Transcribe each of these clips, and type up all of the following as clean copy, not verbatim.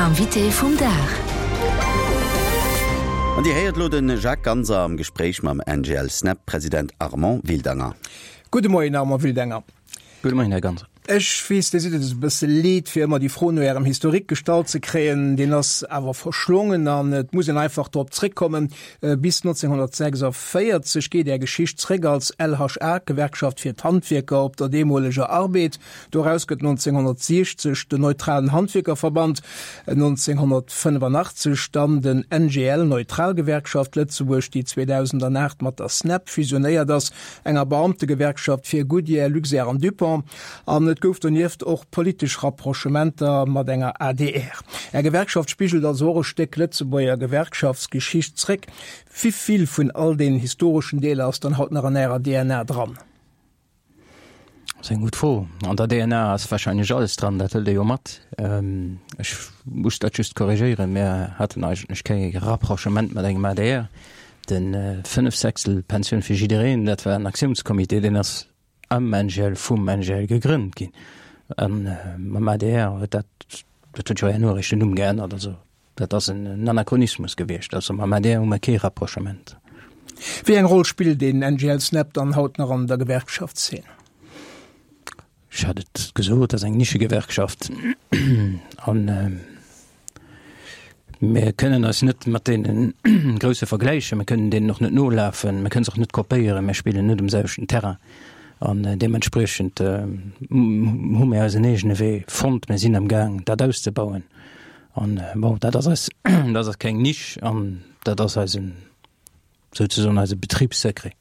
L'invité vum Dag. An Dir héiert elo de Jacques Ganser am Gespréich mam NGL-SNEP-President Armand Wildanger. Gudde Moien Armand Wildanger. Gudde Moien Här Ganser. Ech weess, Dir sidd et e bësse leed, fir ëmmer déi Fro no Ärem Historique gestallt ze kréien. Deen ass awer verschlongen an et muss een einfach drop zréckkommen. Bis 1946 geet Är Geschicht zréck als LHA, d'Gewerkschaft fir d'Handwierker op der deemoleger Arbed. Doraus gëtt 1960 den Neutralen Handwierkerverband, 1985 dann den NGL, Neutral Gewerkschaft Lëtzebuerg, déi 2008 mat der SNEP fusionéiert ass, enger Beamtegewerkschaft fir Goodyear, Luxair an Dupont. An et gouf donieft och politesch Rapprochementer mat enger adr. Är Gewerkschaft spigelt also och e Stéck Lëtzebuerger Gewerkschaftsgeschicht zréck. Wivill vun all deenen historeschen Deeler ass dann haut nach an Ärer DNA dran? Dat ass eng gutt Fro. An der DNA ass wahrscheinlech alles dran, dat hëlt ee jo mat. Ech muss dat just korrigéieren, Mir haten eigentlech kee Rapprochement mat engem adr. De Fënnefsechstelpensioun fir jiddereen, dat war en Aktiounscomité, deen ass am NGL, vum NGL gegrënnt ginn. A mam adr huet dat, dat huet jo herno eréischt den Numm geännert, also Dat ass en Anachronismus gewiescht. Also mam adr hu mer kee Rapprochement. Wéi eng Roll spillt den NGL Snap dann haut nach an der Gewerkschaftszeen? Ech hat et gesot, dat ass eng Nischegewerkschaft an mir kënnen eis net mat deene Grousse vergläichen. Mir kënnen deenen och net nolafen, mir kënnen se och net kopéieren, mir spillen net um selwechten Terrain an deementspriechend hu mir eisen eegene Wee fonnt. Mir sinn am Gaang dat auszebauen. An bon, dat ass eis, dat ass keng Nisch an dat ass eisen, souzesoen eise Betribssecret,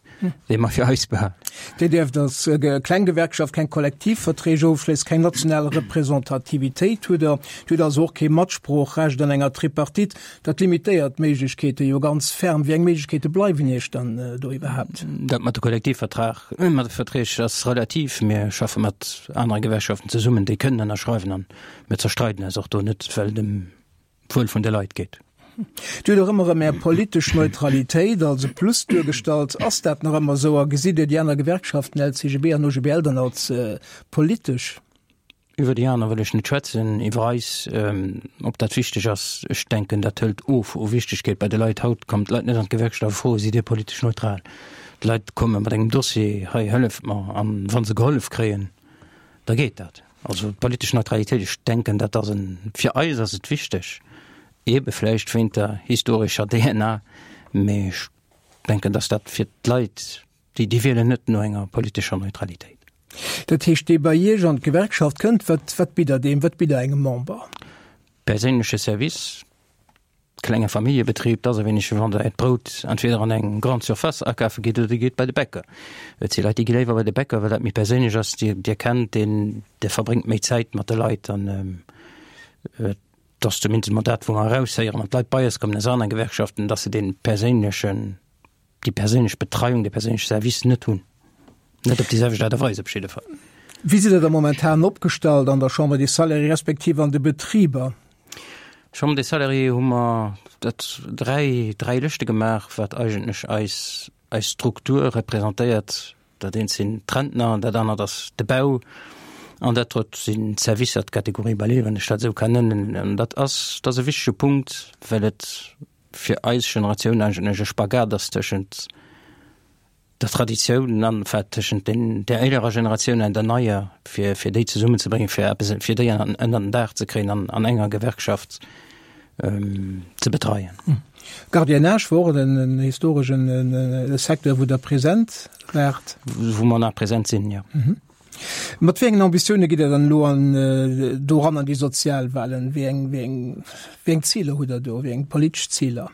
dee mer fir eis behalen. Dir dierft als kleng Gewerkschaft keng Kollektivverträg ofschléissen, keng national Representativitéit hutt Der. Dir hutt also och kee Matsproochrecht an enger Tripartite. Dat limitéiert d'Méiglechkeete jo ganz ferm. Wéi eng Méiglechkeete bleiwen Iech dann do iwwerhaapt? Dat mat de Kollektivvertrag, mat de Verträg ass relativ. Mir schaffe mat anere Gewerkschaften zesummen, déi kënnen ënnerschreiwen an Mir zerstreiden eis och do net, well et ëm d'Wuel vun de Leit geet. Dir hutt och ëmmer erëm Är politesch Neutralitéit als e Plus duergestallt. Ass dat nach ëmmer esou a gesitt Dir déi aner Gewerkschaften, LCGB an OGBL, dann als politesch? Iwwer déi aner wëll ech net schwätzen. Iwwer eis, ob dat wichteg ass, ech denken, dat hëlt of u Wichtegkeet bei de Leit. Haut kommen d'Leit net an d'Gewerkschaft a froen, Sidd Dir politesch neutral? D'Leit komme mat engem Dossier, Hei, hëlleft mer. An wa se gehollef kréien, da geet dat. Also d'politesch Neutralitéit, ech denken, dat ass en, fir eis ass et wichteg, eebe vläicht wéint der historescher DNA, mee ech denken, datt dat fir d'Leit, déi, déi wielen net no enger politescher Neutralitéit. Dat heescht, dee bei Iech an d'Gewerkschaft kënnt, wat, wat bitt Der deem, wat bitt Der engem Member? Perséinleche Service, Klenge Familljebetrib, 't ass e wéineg wéi wann der äert Brout entweder an eng Grande Surface akafe gitt oder dir gitt bei de Bäcker. Et si Leit, déi gi léiwer bei de Bäcker, well dat méi perséinlech ass. Dir, dir kennt deen, dir verbréngt méi Zäit mat de Leit an et ass zumindest emol dat, wou mer eraushéieren, wann d'Leit bei eis kommen aus anere Gewerkschaften, dass se dee perséinlechen, déi perséinlech Betreiung, dee perséinleche Service net hunn. Net op déi selwecht Aart a Weis op jidde Fall. Wéi sidd Der da momentan opgestallt an der Chambre des Salariés respektiv an de Betriber? Chambre des Salariés hu mer dat dräi, dräi Lëschte gemaach, wat eigentlech eis, eis Struktur representéiert. Dat eent sinn d'Rentner, dat anert ass de Bau an dat drëtt sinn d'Servicer, d'Catégorie Balai, wann ech dat esou kann nennen. An dat ass, dat ass e wichtege Punkt, well et fir eis Generatioun eigentlech e Spagat ass tëschent der Traditioun an enfin tëschent den der élerer Generatioun an der neier, fir fir déi zesummenzebréngen, fir eppes fir déi an ënner den Daach ze kréien an an enger Gewerkschaft ze betreien. Gardiennage wor och en historeschen Secteur, wou Der present waart. Wou mer nach present sinn, jo. Mat wéi engen Ambitioune gitt Der dann elo an doran an déi Sozialwahlen? Wéi eng wéi eng wéi eng Ziler hutt Der do, wéi eng politesch Ziler?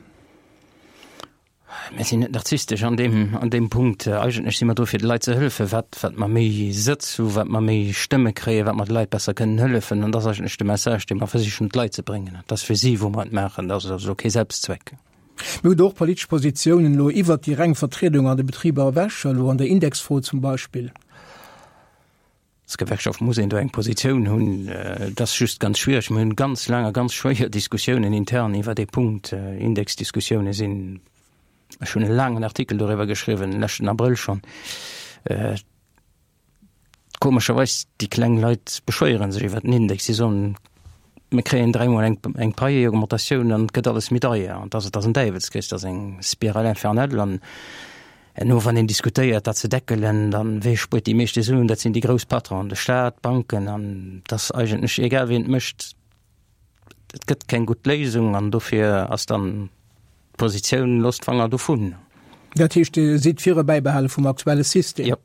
Mir sinn net narzisstesch an deem, an deem Punkt. Eigentlech si mer do fir de Leit ze hëllefen. Wat, wat mer méi Sëtz hu, wat mer méi Stëmme kréien, wat mer de Leit besser kënnen hëllefen. An dat ass eigentlech de Message, dee mer versichen d'Leit ze bréngen. Et ass fir si, wou mer et maachen. Dat ass also kee Selbstzweck. Mir hunn do och politesch Positiounen elo iwwert déi reng Vertriedung an de Betriber ewech, elo an der Indexfro zum Beispill. Als Gewerkschaft muss een do eng Positioun hunn. Et ass just ganz schwiereg. Mir hunn ganz laang a ganz schwéier Diskussiounen intern iwwer dee Punkt. Indexdiskussioune sinn, ech hunn e laangen Artikel doriwwer geschriwwen, leschten Abrëll schonn. Komescherweis, déi kleng Leit beschwéiere sech iwwer den Index. Si soen. Mir kréien dräimol eng, eng Paieaugmentatioun an et gëtt alles méi deier. An dass et ass en Däiwelskrees, dat ass eng Spirale infernale. An herno, wann een diskutéiert, dat ze deckelen, dann, wee spuert déi meeschte Suen? Dat sinn déi grouss Patronen, de Staat, d'Banken. An et ass eigentlech egal, wien et mécht, et gëtt keng gutt Léisung. An dofir ass dann d'Positioun, Loosst d'Fanger dovun. Dat heescht, Dir sidd fir e Bäibehale vum aktuelle System? Jo.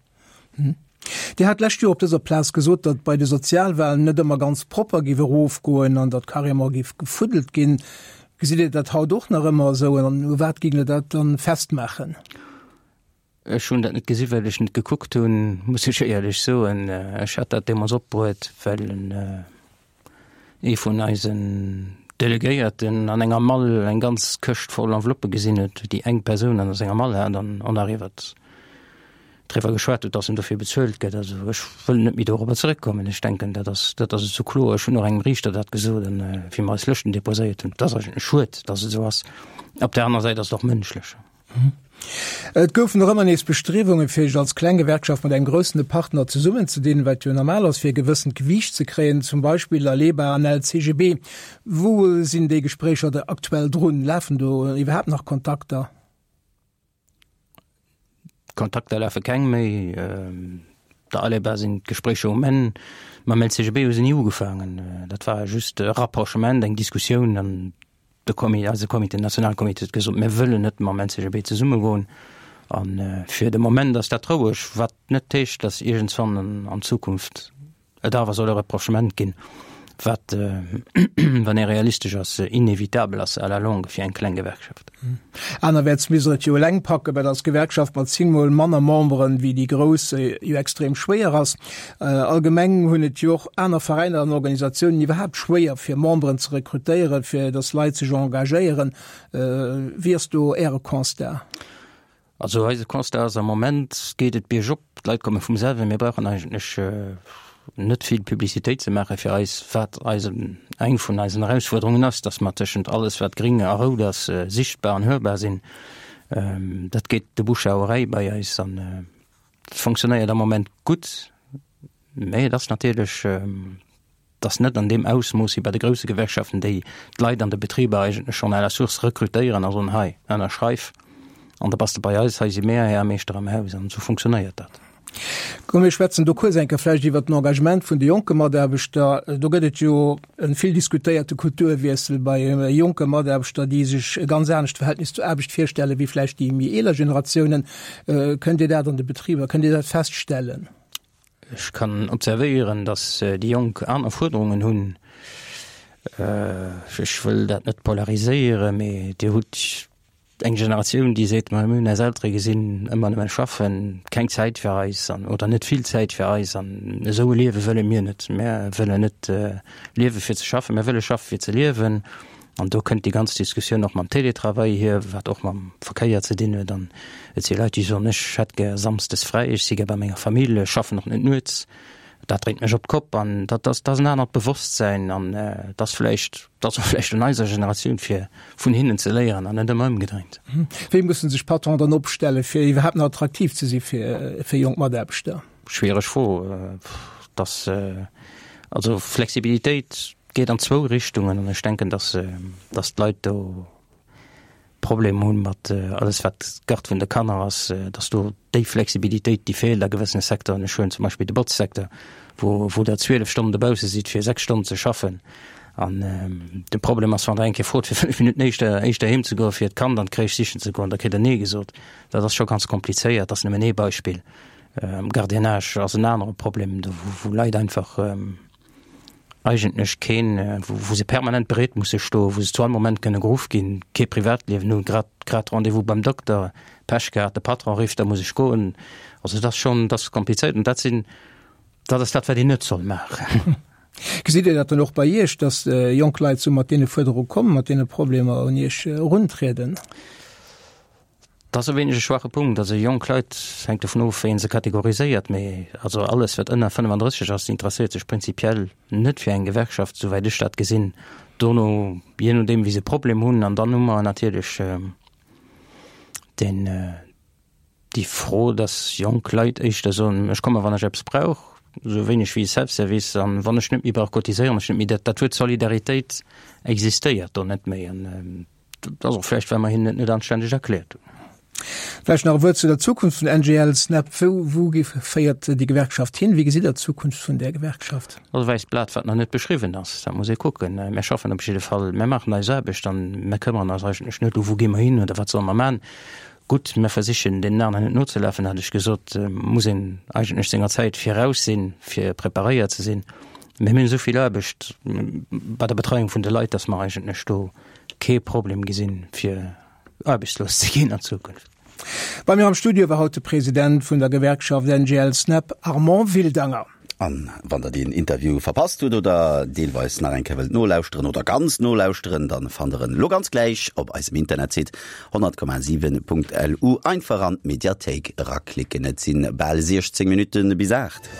Dir hat d'lescht Joer op dëser Plaz gesot, datt bei de Sozialwahlen net ëmmer ganz propper giff erofgoen an datt carrément giff gefuddelt ginn. Gesitt Dir dat haut och nach ëmmer esou an u wat géing Der dat dann festmaachen? Ech hunn dat net gesi well ech net gekuckt hunn, muss ech éierlech soen. Ech hat dat deemools opbruet, well en ee vun eisen Delegéierten an enger Mall eng ganz Këscht voll Enveloppe gesinn huet, déi eng Persoun an senger Mall hat an on arrivert driwwer geschwat huet, dass en dofir bezuelt gëtt. Also ech wëll net méi dorobber zeréckkommen. Ech denken, dat ass, dat ass esou kloer. Ech hunn och engem Riichter dat gesot, an wéi mer eis Lëschten deposéiert hunn. Et ass eigentlech schued, dass et esou ass. Op där aner Säit ass et och mënschlech. Et goufen och ëmmer nees Bestriewungen, fir sech als kleng Gewerkschaft mat engem groussene Partner zesummenzedinn, wat jo normal ass, fir e gewëssent Gewiicht ze kréien, zum Beispill Aleba an LCGB. Wou sinn déi Gespréicher da aktuell drun? Lafen do iwwerhaapt nach Kontakter? Kontakter lafe keng méi. Der Aleba sinn d'Gespréicher um Enn. Mam LCGB hu se ni ugefaangen. Dat war just e Rapprochement, eng Diskussioun an De Comité, eise Comité, den Nationalcomité huet gesot, mir wëllen net mam LCGB zesummegoen. A fir de Moment ass dat roueg, wat net heescht, datt iergendswann an Zukunft et awer soll e Rapprochement ginn, wat, wann ee realistesch ass, inevitabel ass à la longue fir eng kleng Gewerkschaft. Anerwäerts misst Der et jo eleng packen, wat als Gewerkschaft mat zéngmol manner Memberen wéi déi grouss jo extrem schwéier ass. Allgemeng hunn et jo och aner Veräiner an Organisatiounen iwwerhaapt schwéier fir Memberen ze rekrutéieren, fir datt Leit sech engagéieren. Wéi ass do Äre Constat? Also eise Constat ass, am Moment geet et biergop, d'Leit komme vum selwen. Mir brauchen eigentlech net vill Publicitéit ze maache fir eis, wat eisen, eng vun eisen Erausfuerderungen ass, datt mer tëschent alles wat gring a rout ass, sichtbar an hörbar sinn. Dat geet de Bouche à oreille bei eis an et fonctionnéiert am Moment gutt, mä et ass natierlech, Et ass net an deem Ausmooss wéi bei de grousse Gewerkschaften, déi d'Leit an de Betriber eigentlech schonn à la source rekrutéieren a soen, hei, ënnerschreif an da bass de bei eis, hei si mär Här a Meeschter am Haus. An esou funktionéiert dat. Komm mir schwätzen do kuerz eng Kéier vläicht iwwert den Engagement vun de jonke Mataarbechter. Do gëtt et jo e vill diskutéierte Kulturwiessel bei jonke Mataarbechter, déi sech e ganz anescht Verhältnis zur Aarbecht virstelle wéi vläicht déi méi eeler Generatiounen. Kënnt Dir dat an de Betriber, kënnt Dir dat feststellen? Ech kann observéieren, datt déi Jonk aner Fuerderungen hunn. Ech wëll dat net polariséieren, mee Dir hutt eng Generatioun, déi seet, ma mir hunn eis Eltere gesinn, ëmmer nëmme schaffen, keng Zäit fir eis an oder net vill Zäit fir eis an esou e Liewe wëlle mir net. Mir wëllen net liewe fir ze schaffen, mir wëlle schaffe fir ze liewen. An do kënnt déi ganz Diskussioun och mam Télétravail hier, wat och mam Verkéier ze dinn huet. An et si Leit, déi soen, ech hätt gär samsdes fräi, ech si gär bei menger Famill, ech schaffen och net nuets, dat dréint mech op d'Kopp. An dat ass, dat ass en anert Bewosstsäin an et ass vläicht, et ass och vläicht un eiser Generatioun, fir vun hinnen ze léieren an net ëmmer ëmgedréint. Wéi musse sech Patronen dann opstellen, fir iwwerhaapt nach attraktiv ze si fir jonk Mataarbechter? Schwiereg Fro. Dass, also Flexibilitéit geet an zwou Richtungen an ech denken, dass, dass d'Leit do Problem hunn mat alles wat d'Garde vun de Kanner ass, dass do déi Flexibilitéit, déi feelt a gewëssene Secteuren. Ech huelen zum Beispill de Botzsecteur, wou, wou Der 12 Stonnen dobausse sidd fir 6 Stonnen ze schaffen. An de Problem ass, wann Der eng Kéier frot fir 5 Minutten éischter, éischter heem ze goen, fir d'Kand an d'Crèche sichen ze goen, da kritt Der Nee gesot. Dat ass scho ganz komplizéiert. Dat ass nëmmen ee Beispill. Gardiennage ass en anere Problem, do wou Leit einfach eigentlech keen, wou se permanent bereet musse stoen, wou se zu all Moment kënne geruff ginn, kee Privatliewen hunn, grad grad Rendez-vous beim Dokter, Pech gehat, de Patron rifft, da muss ech goen. Also dat ass schonn, dat ass komplizéiert an dat sinn, dat ass dat, wat een net soll maachen. Gesitt Dir dat dann och bei Iech, datt jonk Leit sou mat deene Fuerderunge kommen, mat deene Problemer un Iech eruntrieden? Dat ass e wéineg e schwache Punkt. Also jonk Leit, hänkt dovun of, wéi ee se kategoriséiert, mee also alles, wat ënner 35 ass, interesséiert sech prinzipiell net fir eng Gewerkschaft, souwäit ech dat gesinn. Dono, jee nodeem, wéi se Problem hunn, an dann hu mer natierlech deen, déi Fro, dass jonk Leit éischter soen, ech komme wann ech eppes brauch. esou wéineg wéi e Self-Service. An wann ech net méi brauch cotiséieren, ech net méi dat, dat Wuert Solidaritéit existéiert do net méi. An dat ass och vläicht, well mer hinnen et net anständeg erkläert hunn. Vläicht nach e Wuert zu der Zukunft vun NGL Snap. Wou, wou féiert déi Gewerkschaft hin? Wéi gesitt Der d'Zukunft vun där Gewerkschaft? Dat ass e wäisst Blat, wat nach net beschriwwen ass. Dat muss ee kucken. Mir schaffen op jidde Fall, mir maachen eis Aarbecht an mir këmmeren eis eigentlech net, u wou gi mer hin oder wat solle mer maachen. Gutt, mir versichen deenen aneren net nozelafen, hat ech gesot, muss een eigentlech senger Zäit viraus sinn, fir preparéiert ze sinn. Mee mir hunn esou vill Aarbecht bei der Betreiung vun de Leit, datt mer eigentlech do kee Problem gesinn, fir aarbechtslos ze ginn an Zukunft. Bei mir am Studio war haut de President vun der Gewerkschaft NGL-Snep, Armand Wildanger. An wann der deen Interview verpasst hutt oder deelweis nach eng Kéier wëllt nolauschteren oder ganz nolauschteren, dann fannt der en elo ganz gläich op eisem Internetsite 100,7.lu. Einfach an d'Mediathéik eraklicken. Et sinn bal 16 Minutten bis 8.